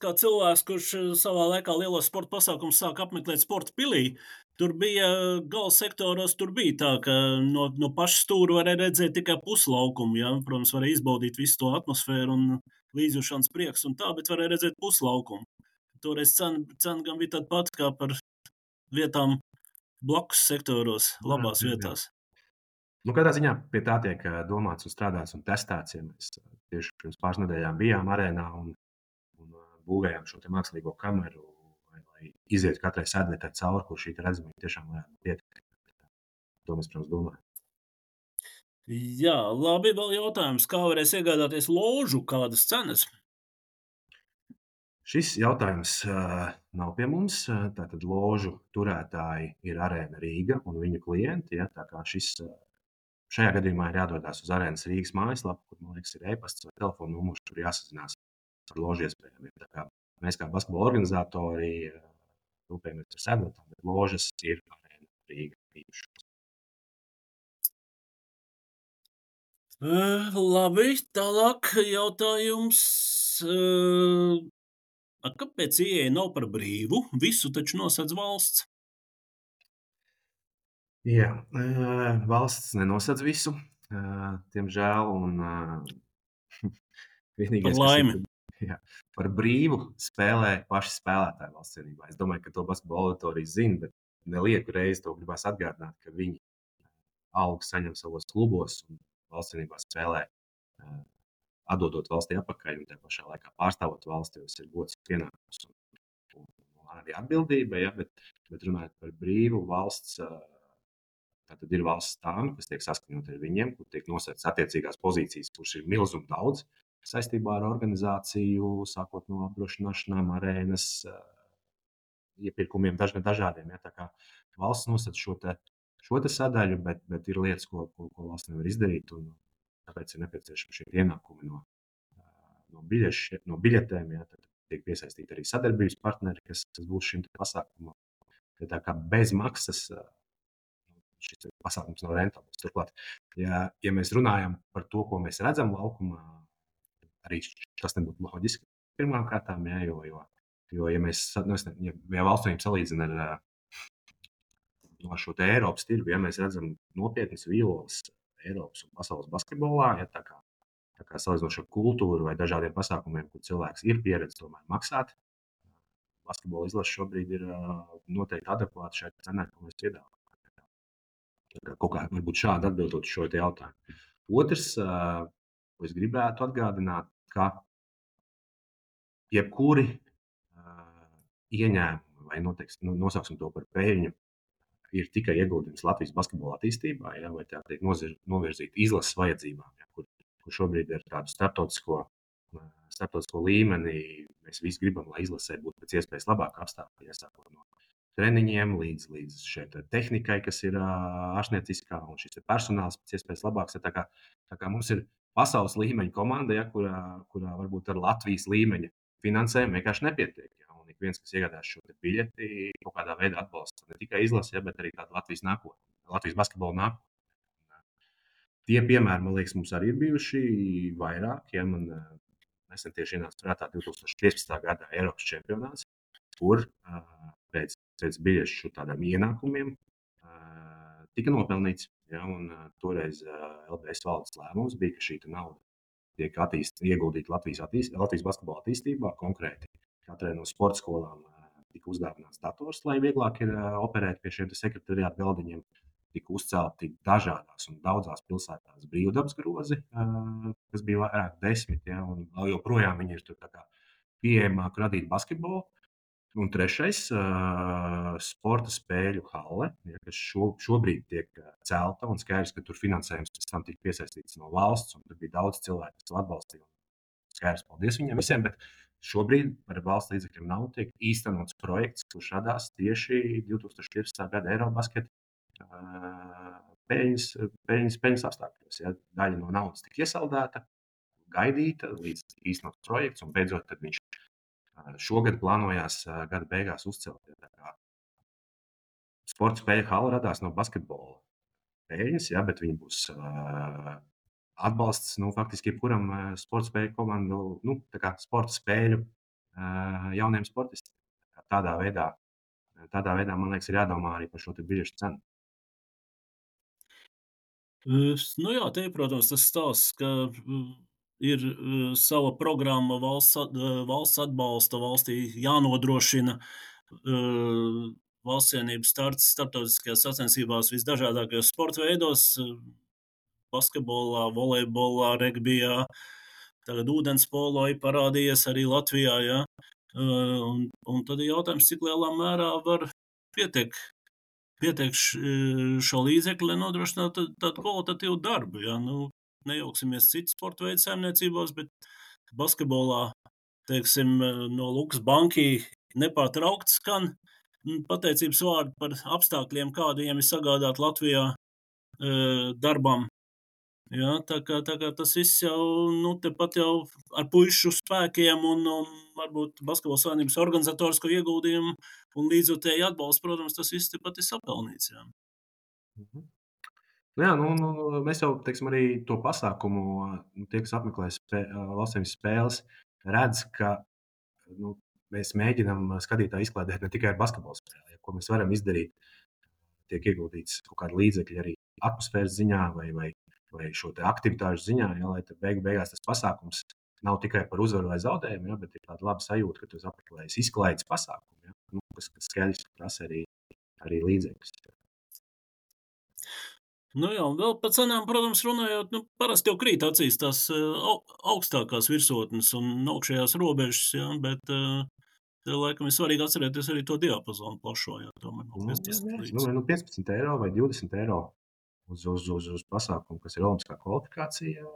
kā cilvēks, kurš savā laikā lielo sporta pasākumu sāk apmeklēt sporta pilī, tur bija gala sektoros, tur bija tā, ka no paša stūra varēja redzēt tikai puslaukumu. Ja? Protams, varēja izbaudīt visu to atmosfēru un līdzjūšanas prieks un tā, bet varēja redzēt puslaukumu. Toreiz cena gan bija tāda pati kā par vietām blakus sektoros, labās vietās. Katrā ziņā pie tā tiek domāts un strādāts un testēts. Ja mēs tieši pirms pāris nedēļām bijām arēnā un būvējām šo mākslīgo kameru, lai izietu katrai sēdvietai cauri, kur šī redzamība tiešām varētu pietikt. To mēs, protams, domājam. Jā, labi, vēl jautājums, kā varēs iegādāties ložu, kādas cenas? Šis jautājums nav pie mums. Tātad ložu turētāji ir Arēna Rīga un viņu klienti. Ja, tā kā šajā gadījumā ir jādodas uz Arēnas Rīgas mājaslapu, kur, man liekas, ir e-pasts vai telefona numurs, tur jāsazinās ar ložu iespējām. Mēs kā basketbola organizatori rūpējamies par sēdvietām, bet ložas ir Arēna Rīga īpašums. Labi, tālāk jautājums. Kāpēc ieeja nav par brīvu? Visu taču nosedz valsts. Jā, valsts nenosedz visu, diemžēl, un Par vienīgais, kas ir laimi. par brīvu, spēlē paši spēlētāji valsts vienībā. Es domāju, ka to basketbola auditorija zina, bet nelieku reizi to gribās atgādināt, ka viņi algu saņem savos klubos un valsts vienībā spēlē, atdodot valstī atpakaļ un tajā pašā laikā pārstāvot valsti, jo tas ir gods pienākums un arī atbildība, ja, bet runājot par brīvu valsts, tad ir valsts stāmi, kas tiek saskaņot ar viņiem, kur tiek nosētas attiecīgās pozīcijas, kurš ir milzum daudz saistībā ar organizāciju, sākot no apdrošināšanām, arēnas, iepirkumiem dažādiem. Ja, tā kā valsts nosaka šo te sadaļu, bet ir lietas, ko valsts nevar izdarīt, un tāpēc ir nepieciešami šie ienākumi no biļetēm. Ja, tad tiek piesaistīti arī sadarbības partneri, kas būs šim pasākumam. Tā kā bez maksas šis pasākums nav rentabls. Turklāt, ja mēs runājam par to, ko mēs redzam laukumā, arī tas nebūtu loģiski pirmām kārtām, ja, jo ja mēs valstīm salīdzina ar šo te Eiropas tirgu, ja mēs redzam nopietnas vīloles Eiropas un pasaules basketbolā, ja, tā kā salīdzinot ar kultūru vai dažādiem pasākumiem, kur cilvēks ir pieredzējis tomēr maksāt, basketbola izlase šobrīd ir noteikti adekvāta šai cenai, ko mēs piedāvājam. Kaut kā varbūt šādi atbildot šo te jautājumu. Otrs, ko es gribētu atgādināt, ka jebkuri ieņēmumi, vai nosauksim to par peļņu, ir tikai ieguldījums Latvijas basketbola attīstībā, ja, vai tā tiek novirzīta izlases vajadzībām, ja, kur šobrīd ir tādu starptautisko līmenī. Mēs visi gribam, lai izlasē būtu pēc iespējas labāk apstākļi, iesākot no treniņiem līdz šai tehnikai, kas ir ārstnieciskā, un šis personāls pēc iespējas labāks. Tā kā mums ir pasaules līmeņa komanda, ja, kurā varbūt ar Latvijas līmeņa finansējumu vienkārši nepietiek. Ja, un ik viens, kas iegādās šo biļeti, kaut kādā veidā atbalsta ne tikai izlasi, ja, bet arī tādu Latvijas nākotni, Latvijas basketbola nākotni. Tie piemēri, man liekas, mums arī ir bijuši vairāk. Ja, man nesen tieši ienāca prātā 2015. gada Eiropas čempionāts, kur pēc biļešu tādām ienākumiem tika nopelnīts. Ja, un toreiz LBS valdes lēmums bija, ka šī nauda tiek ieguldīta Latvijas basketbola attīstībā. Konkrēti katrai no sporta skolām tika uzdāvināts dators, lai vieglāk ir operēt pie šiem sekretariāta galdiņiem. Tika uzcelti dažādās un daudzās pilsētās brīvdabas grozi, kas bija vairāk 10, ja, un joprojām viņi ir tur tā kā pieejamāk radīt basketbolu. Un trešais, sporta spēļu halle, ja, kas šobrīd tiek celta, un skaidrs, ka tur finansējums pēc tam tika piesaistīts no valsts, un tur bija daudz cilvēku, kas atbalstīja. Skaidrs, paldies viņiem visiem, bet šobrīd par valsts līdzekļiem nav tiek īstenots projekts, kurš radās tieši 2015. gada Eirobasketa peļņas apstākļos. Ja. Daļa no naudas tika iesaldēta, gaidīta līdz īstenots projekts, un beidzot tad viņš šogad plānojās gada beigās uzcelt. Sporta spēļu hala radās no basketbola peļņas, ja, bet viņi būs atbalsts faktiski jebkuram sporta spēļu komandu, sporta spēļu jauniem sportistiem. Tādā veidā, man liekas, ir jādomā arī par šo biļešu cenu. Jā, te, protams, tas stāsts, ka ir sava programma valsts atbalsta, valstī jānodrošina valsts cienības starts starptautiskajās sacensībās visdažādākajos sporta veidos, basketbolā, volejbolā, regbijā, tagad ūdenspolo ir parādījies arī Latvijā, ja? Un tad ir jautājums, cik lielā mērā var pietiek šo līdzekļu, lai nodrošinātu tādu kvalitatīvu darbu. Ja? Nejauksimies citu sporta veidu saimniecībās, bet basketbolā, teiksim, no Lukas Banki nepārtraukti skan pateicības vārdi par apstākļiem, kādiem ir sagādāt Latvijā darbam. Ja, tā kā tas viss jau tepat jau ar puišu spēkiem un varbūt basketbola savienības organizatorisko ieguldījumu un līdzjūtēju atbalstu, protams, tas viss tepat ir sapelnīts. Jā. Jā, mēs jau, teiksim, arī to pasākumu, tie, kas apmeklē valstsiem spēles, redz, ka mēs mēģinām skatītāju izklaidēt ne tikai ar basketbola spēli, ko mēs varam izdarīt. Tiek ieguldīts kaut kāda līdzekļa arī atmosfēras ziņā vai šo aktivitāšu ziņā, lai beigās tas pasākums nav tikai par uzvaru vai zaudējumu, bet ir tāda laba sajūta, ka tu esi apmeklējis izklaides pasākumu, kas skaidrs prasa arī līdzekļus. Nu jā, un vēl par cenām, protams, runājot, parasti jau krīt acīs tās augstākās virsotnes un augšējās robežas, bet laikam ir svarīgi atcerēties arī to diapazonu plašo, tomēr no 15 līdz. 15 eiro vai 20 eiro uz pasākumu, kas ir olimpiskā kvalifikācija.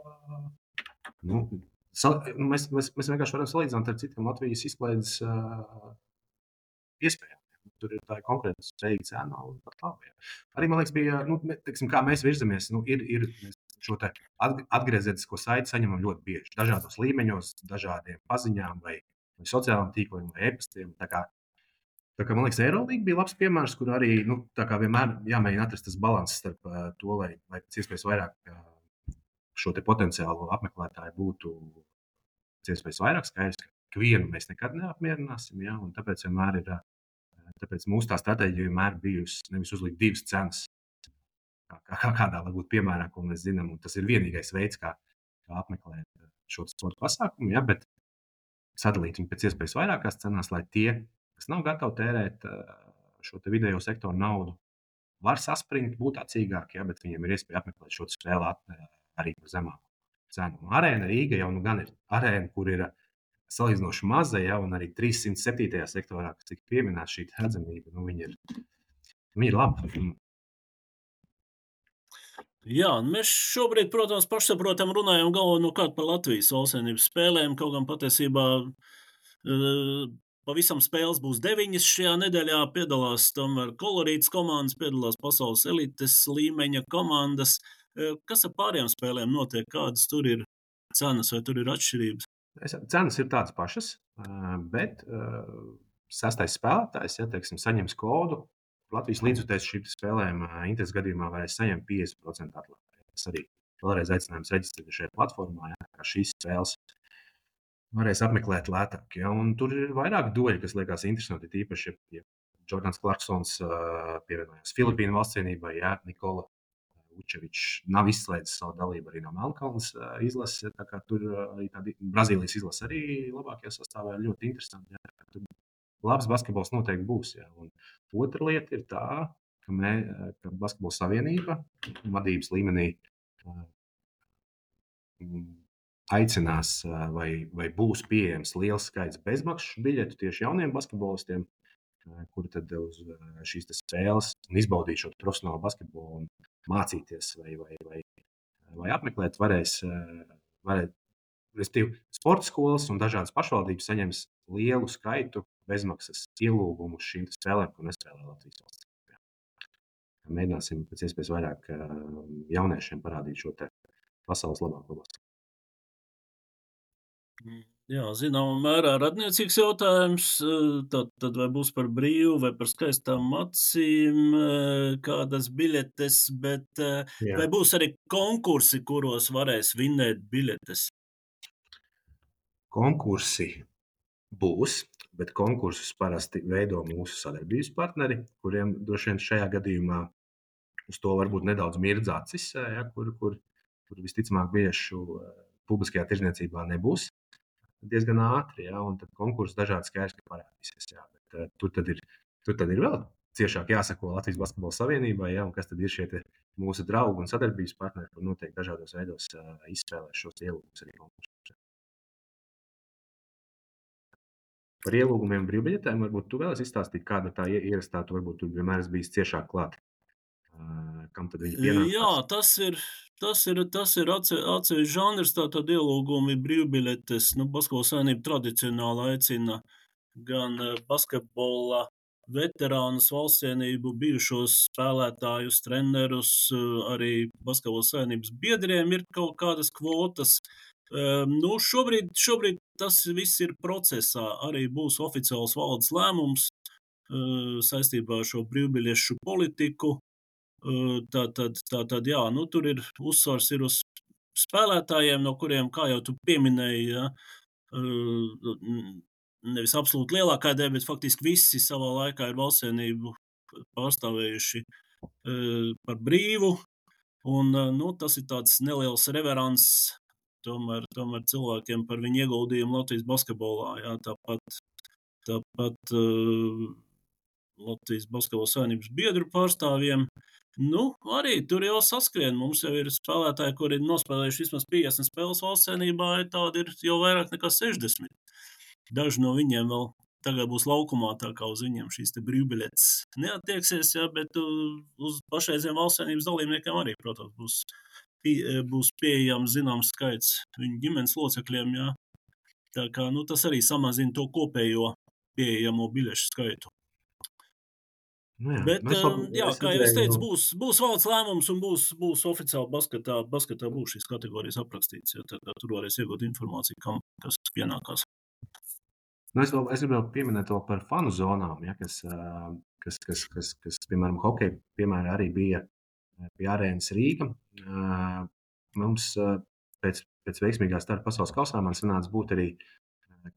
Mēs vienkārši varam salīdzināt ar citiem Latvijas izklaides iespējām. Tur ir tā konkrēta spējīga cena un pat labi. Arī, man liekas, bija, kā mēs virzamies, mēs šo te atgriezenisko saiti saņemam ļoti bieži. Dažādos līmeņos, dažādiem paziņām vai sociālajiem tīkliem vai e-pastiem. Tā kā, man liekas, Eirolīga bija labs piemērs, kur arī, tā kā vienmēr jāmēģina atrast tas balanss starp to, lai pēc iespējas vairāk šo te potenciālo apmeklētāju būtu pēc iespējas vairāk. Skaidrs, ka vienu mēs nekad neapmierināsim, un tāpēc vienmēr ir. Tāpēc mūsu stratēģija vienmēr bijusi nevis uzlikt divas cenas, kādā varbūt piemērā, ko mēs zinām. Tas ir vienīgais veids, kā apmeklēt šo sporta pasākumu, bet sadalīt viņu pēc iespējas vairākās cenās, lai tie, kas nav gatavi tērēt šo te vidējo sektoru naudu, var saspringt, būt acīgāki, bet viņiem ir iespēja apmeklēt šo spēli arī par zemāku cenu. Arēna Rīga jau gan ir arēna, kur ir salīdzinoši maza, un arī 307. sektorā, kas tika pieminēta šī redzamība, viņi ir labi. Jā, mēs šobrīd, protams, pašsaprotam runājam galvenokārt par Latvijas valstsvienības spēlēm, kaut gan patiesībā pavisam spēles būs 9 šajā nedēļā, piedalās tomēr kolorītas komandas, piedalās pasaules elites līmeņa komandas. Kas ar pārējām spēlēm notiek? Kādas tur ir cenas vai tur ir atšķirības? Cenas ir tādas pašas, bet sastais spēlētājs, saņems kodu. Latvijas līdzutējs šīm spēlēm intereses gadījumā varēs saņemt 50% atlaidi. Tas arī vēlreiz aicinājums reģistrēt šajā platformā, kā šīs spēles varēs apmeklēt lētāk. Un tur ir vairāk doļi, kas liekas interesanti, tīpaši, ja Jordans Clarksons pievienojās Filipīnu valstsvienībai, Nikola Vučevičs nav izslēdzis savu dalību arī no Melnkalnes izlases. Tur arī tāda Brazīlijas izlase arī labākajā sastāvā ir ļoti interesanti. Tur labs basketbols noteikti būs. Un otra lieta ir tā, ka Basketbola savienība vadības līmenī aicinās vai būs pieejams liels skaits bezmaksu biļetu tieši jauniem basketbolistiem, kuri tad uz šīs spēles un izbaudīt šo profesionālo basketbolu un mācīties vai apmeklēt varēs. Respektīvi, sporta skolas un dažādas pašvaldības saņems lielu skaitu bezmaksas ielūgumu šīm spēlēm, ko nespēlē Latvijas valsts. Mēģināsim pēc iespējas vairāk jauniešiem parādīt šo te pasaules labāko basketbolu. Jā, zināmā mērā radniecīgs jautājums, tad vai būs par brīvu vai par skaistām acīm kādas biļetes, bet vai būs arī konkursi, kuros varēs vinnēt biļetes? Konkursi būs, bet konkursus parasti veido mūsu sadarbības partneri, kuriem droši vien šajā gadījumā uz to varbūt nedaudz mirdz acis, kur visticamāk biļešu publiskajā tirdzniecībā nebūs diezgan ātri, un tad konkursi dažādi skaidrs, ka parādīsies. Bet tur tad ir vēl ciešāk jāsako Latvijas Basketbola savienībai, un kas tad ir šie mūsu draugi un sadarbības partneri, kur noteikti dažādos veidos izspēlēs šos ielūgumus arī konkursus. Par ielūgumiem brīvbiļetēm varbūt tu vēlies izstāstīt, kāda tā ierastā, tu varbūt tu vienmēr esi bijis ciešāk klāt. Kam tad viņi pienākās? Jā, tas ir atsevišķs žanrs, tātad ielūgumi brīvbiļetes. Basketbola savienība tradicionāli aicina gan basketbola veterānus, valstsvienību, bijušos spēlētājus, trenerus, arī basketbola savienības biedriem ir kaut kādas kvotas. Šobrīd tas viss ir procesā. Arī būs oficiāls valdes lēmums saistībā ar šo brīvbiļešu politiku. Tātad, jā, tur ir uzsvars ir uz spēlētājiem, no kuriem, kā jau tu pieminēji, nevis absolūti lielākā daļa, bet faktiski visi savā laikā ir valstsienību pārstāvējuši par brīvu. Un, tas ir tāds neliels reverants tomēr cilvēkiem par viņu ieguldījumu Latvijas basketbolā. Jā, tāpat Latvijas basketbola savienības biedru pārstāvjiem. Arī tur jau saskrien. Mums jau ir spēlētāji, kuri ir nospēlējuši vismaz 50 spēles valstsienībā, tādi ir jau vairāk nekā 60. Daži no viņiem vēl tagad būs laukumā, tā kā uz viņiem šīs te brīvbiļetes neattieksies, jā, bet uz pašreiziem valstsienības dalībniekiem arī, protams, būs pieejams zināms skaits viņu ģimenes locekļiem, jā. Tā kā, tas arī samazina to kopējo pieejamo biļešu skaitu. Bet, kā jau es teicu, būs valsts lēmums un būs oficiāli basketā būs šīs kategorijas aprakstīts, ja tad tur varēs iegūt informāciju, kam kas pienākās. Es gribēju pieminēt to par fanu zonām, ja, kas, piemēram, hokeja piemēra arī bija pie arēnas Rīga. Mums pēc veiksmīgā starta pasaules kausā man sanāca būt arī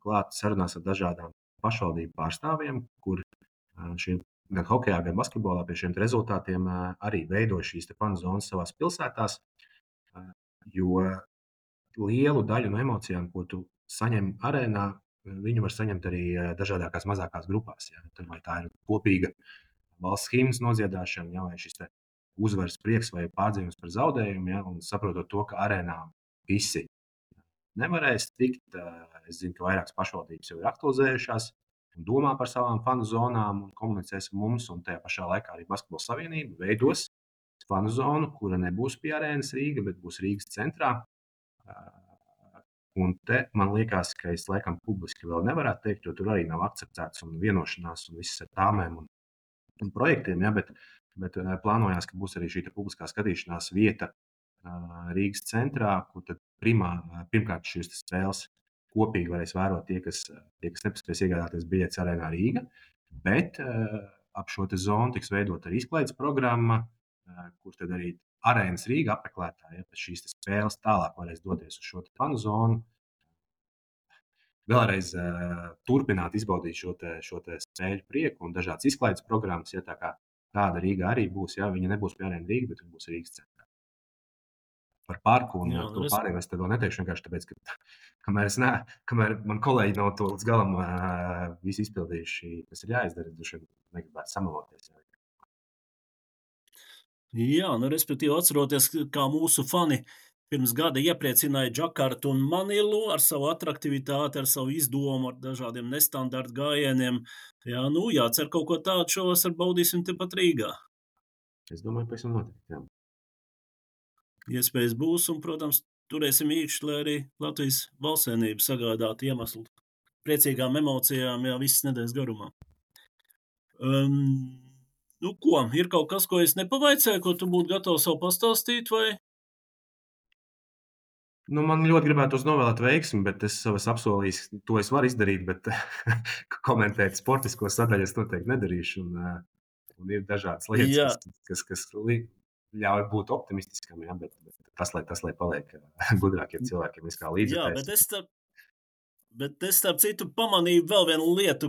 klāt sarunās ar dažādām pašvaldību pārstāvjiem, kur šie gan hokejā, gan basketbolā pie šiem rezultātiem arī veidoja šīs fanu zonas savās pilsētās, jo lielu daļu no emocijām, ko tu saņem arēnā, viņu var saņemt arī dažādākās mazākās grupās. Ja. Vai tā ir kopīga valsts himnas nodziedāšana, ja, vai šis uzvaras prieks vai pārdzīvums par zaudējumu, ja, un saprotot to, ka arēnā visi nevarēs tikt. Es zinu, ka vairākas pašvaldības jau ir aktualizējušās un domā par savām fanu zonām un komunicēs ar mums, un tajā pašā laikā arī Basketbola savienība veidos fanu zonu, kura nebūs pie arēnas Rīga, bet būs Rīgas centrā. Un te man liekas, ka es laikam publiski vēl nevarētu teikt, jo tur arī nav akceptēts un vienošanās un viss ar tāmēm un projektiem, ja, bet plānojās, ka būs arī šī publiskā skatīšanās vieta Rīgas centrā, kur tad pirmkārt šīs spēles kopīgi varēs vērot tie, kas nepaspēs iegādāties biļetes arēnā Rīga, bet ap šo zonu tiks veidot arī izklaides programma, kur tad arī arēnas Rīga apmeklētāji, ja pēc šīs spēles tālāk varēs doties uz šo fanu zonu, vēlreiz turpināt izbaudīt šo spēļu prieku un dažādas izklaides programmas, ja tā kā tāda Rīga arī būs, ja viņa nebūs pie arēna Rīga, bet viņa būs Rīgas centrā. Par parku un to pārējo es tev neteikšu vienkārši tāpēc, ka kamēr man kolēģi nav to līdz galam visu izpildījuši, kas ir jāizdara, droši vien negribētu samaloties. Jā, respektīvi atceroties, kā mūsu fani pirms gada iepriecināja Džakartu un Manilu ar savu atraktivitāti, ar savu izdomu, ar dažādiem nestandarta gājieniem. Jā, jācer kaut ko tādu šovasar baudīsim tepat Rīgā. Es domāju, pēc tam notikt, jā. Iespējas būs, un, protams, turēsim īkšķi, lai arī Latvijas valstsienība sagādātu iemeslu priecīgām emocijām, jā, visas nedēļas garumā. Ir kaut kas, ko es nepavaicēju, ko tu būtu gatavs vēl pastāstīt, vai? Man ļoti gribētu novēlēt veiksmi, bet es savas apsolījis, to es varu izdarīt, bet komentēt sportisko sadaļu es noteikti nedarīšu, un ir dažādas lietas, kas ļauj būt optimistiskam, ja, bet tas, lai paliek gudrākiem cilvēkiem, viskā līdzekļs. Jā, bet es starp citu pamanīju vēl vienu lietu,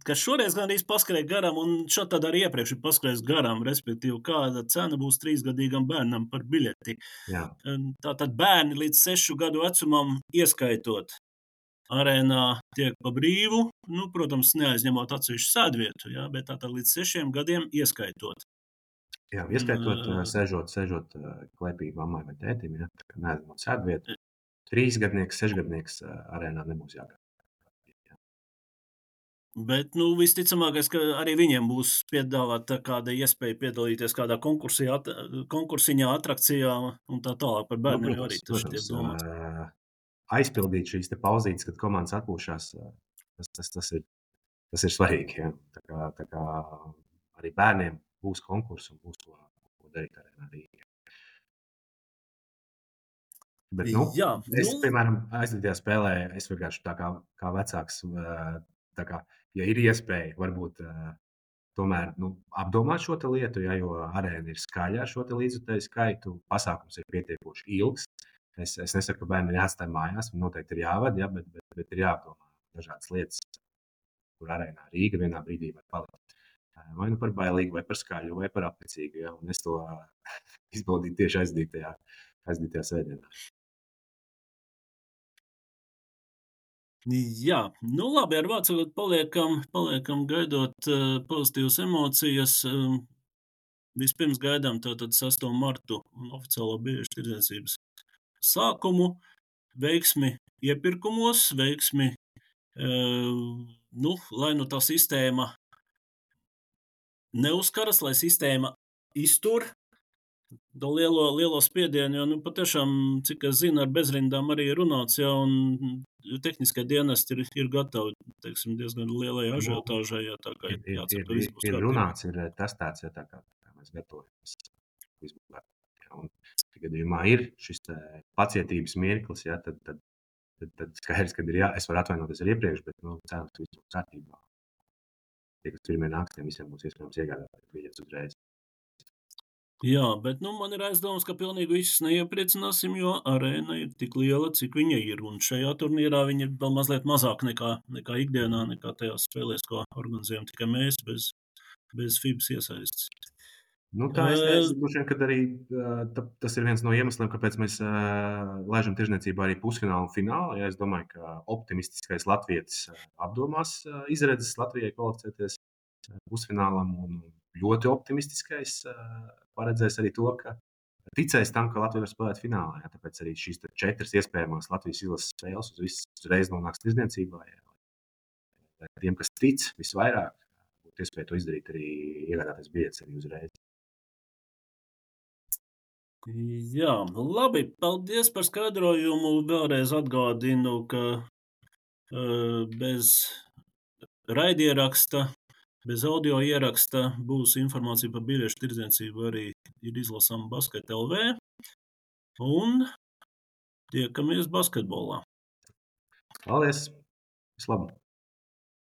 kas šoreiz gan arī paskrēja garām, un šādi tad arī iepriekš ir paskrējis garām, respektīvi, kāda cena būs 3-gadīgam bērnam par biļeti. Jā. Tātad bērni līdz 6 gadu vecumam ieskaitot arēnā tiek pa brīvu, protams, neaizņemot atsevišķu sēdvietu, jā, bet tātad līdz 6 gadiem ieskaitot. Jā, ieskaitot, sēžot klēpī mammai vai tētim, ja, tā kā neaizņemot sēdvietu. 3-gadnieks, 6-gadnieks arēnā nebūs jāgādā. Bet, visticamākais, ka arī viņiem būs piedāvāta kāda iespēja piedalīties kādā konkursiņā, atrakcijā un tā tālāk par bērniem arī tas tiek domāts. Aizpildīt šīs te pauzītes, kad komandas atpūšās, tas ir svarīgi. Ja. Tā kā arī bērniem būs konkurss un būs ko darīt arēnā Rīgā. Bet, piemēram, aizvadītajā spēlē es vienkārši tā kā vecāks, tā kā, ja ir iespēja, varbūt tomēr apdomāt šo lietu, ja, jo arēna ir skaļa ar šo līdzjutēju skaitu, pasākums ir pietiekoši ilgs. Es nesaku, ka bērni ir jāatstāj mājās, noteikti ir jāvada, ja, bet ir jāapdomā dažādas lietas, kur arēnā Rīga vienā brīdī var palikt. Vai nu par bailīgu, vai par skaļu, vai par apnicīgu. Ja? Un es to izbaudīju tieši aizdītajā svētdienā. Jā, nu labi, ar vārdu sakot, paliekam gaidot pozitīvas emocijas. Vispirms gaidām tātad 6. martu un oficiālo biļešu tirdzniecības sākumu, veiksmi iepirkumos, veiksmi, lai nu tā sistēma neuzkaras, lai sistēma iztur to lielo spiedienu, jo patiešām, cik es zinu, ar bezrindām arī ir runāts, ja, un tehniskie dienesti ir gatavi, teiksim, diezgan lielai ažiotāžai, ja, tā kā jācer, ka viss būs ir kārtībā. runāts, ir testēts, ja tā kā mēs gatavojamies. Un gadījumā ir šis pacietības mirklis, ja, tad skaidrs, ka es varu atvainoties ar iepriekš, bet cerams, ka viss būs kārtībā. Tie, kas pirmie nāks, tiem visiem būs iespējams iegādāties biļetes uzreiz. Jā, bet man ir aizdomas, ka pilnīgi visus neiepriecināsim, jo arēna ir tik liela, cik viņa ir. Un šajā turnīrā viņa ir vēl mazliet mazāk nekā ikdienā, nekā tajās spēlēs, ko organizējam tikai mēs, bez FIBas iesaistes. Es droši vien, ka arī tas ir viens no iemesliem, kāpēc mēs laižam tirdzniecībā arī pusfinālu un finālu. Ja es domāju, ka optimistiskais latvietis apdomās izredzes Latvijai kvalificēties pusfinālam, un ļoti optimistiskais paredzēs arī to, ka ticēs tam, ka Latvija var spēlēt finālā. Ja? Tāpēc arī šīs 4 iespējamās Latvijas izlases spēles uzreiz nonāks tirdzniecībā. Ja? Tiem, kas tic visvairāk, būtu iespēja to izdarīt, arī iegādāties biļetes arī uzreiz. Jā, labi, paldies par skaidrojumu. Vēlreiz atgādinu, ka bez raidieraksta, bez audio ieraksta būs informācija par biļešu tirdzniecību arī ir izlasāma Basket LV. Un tiekamies basketbolā. Paldies! Vislabāk!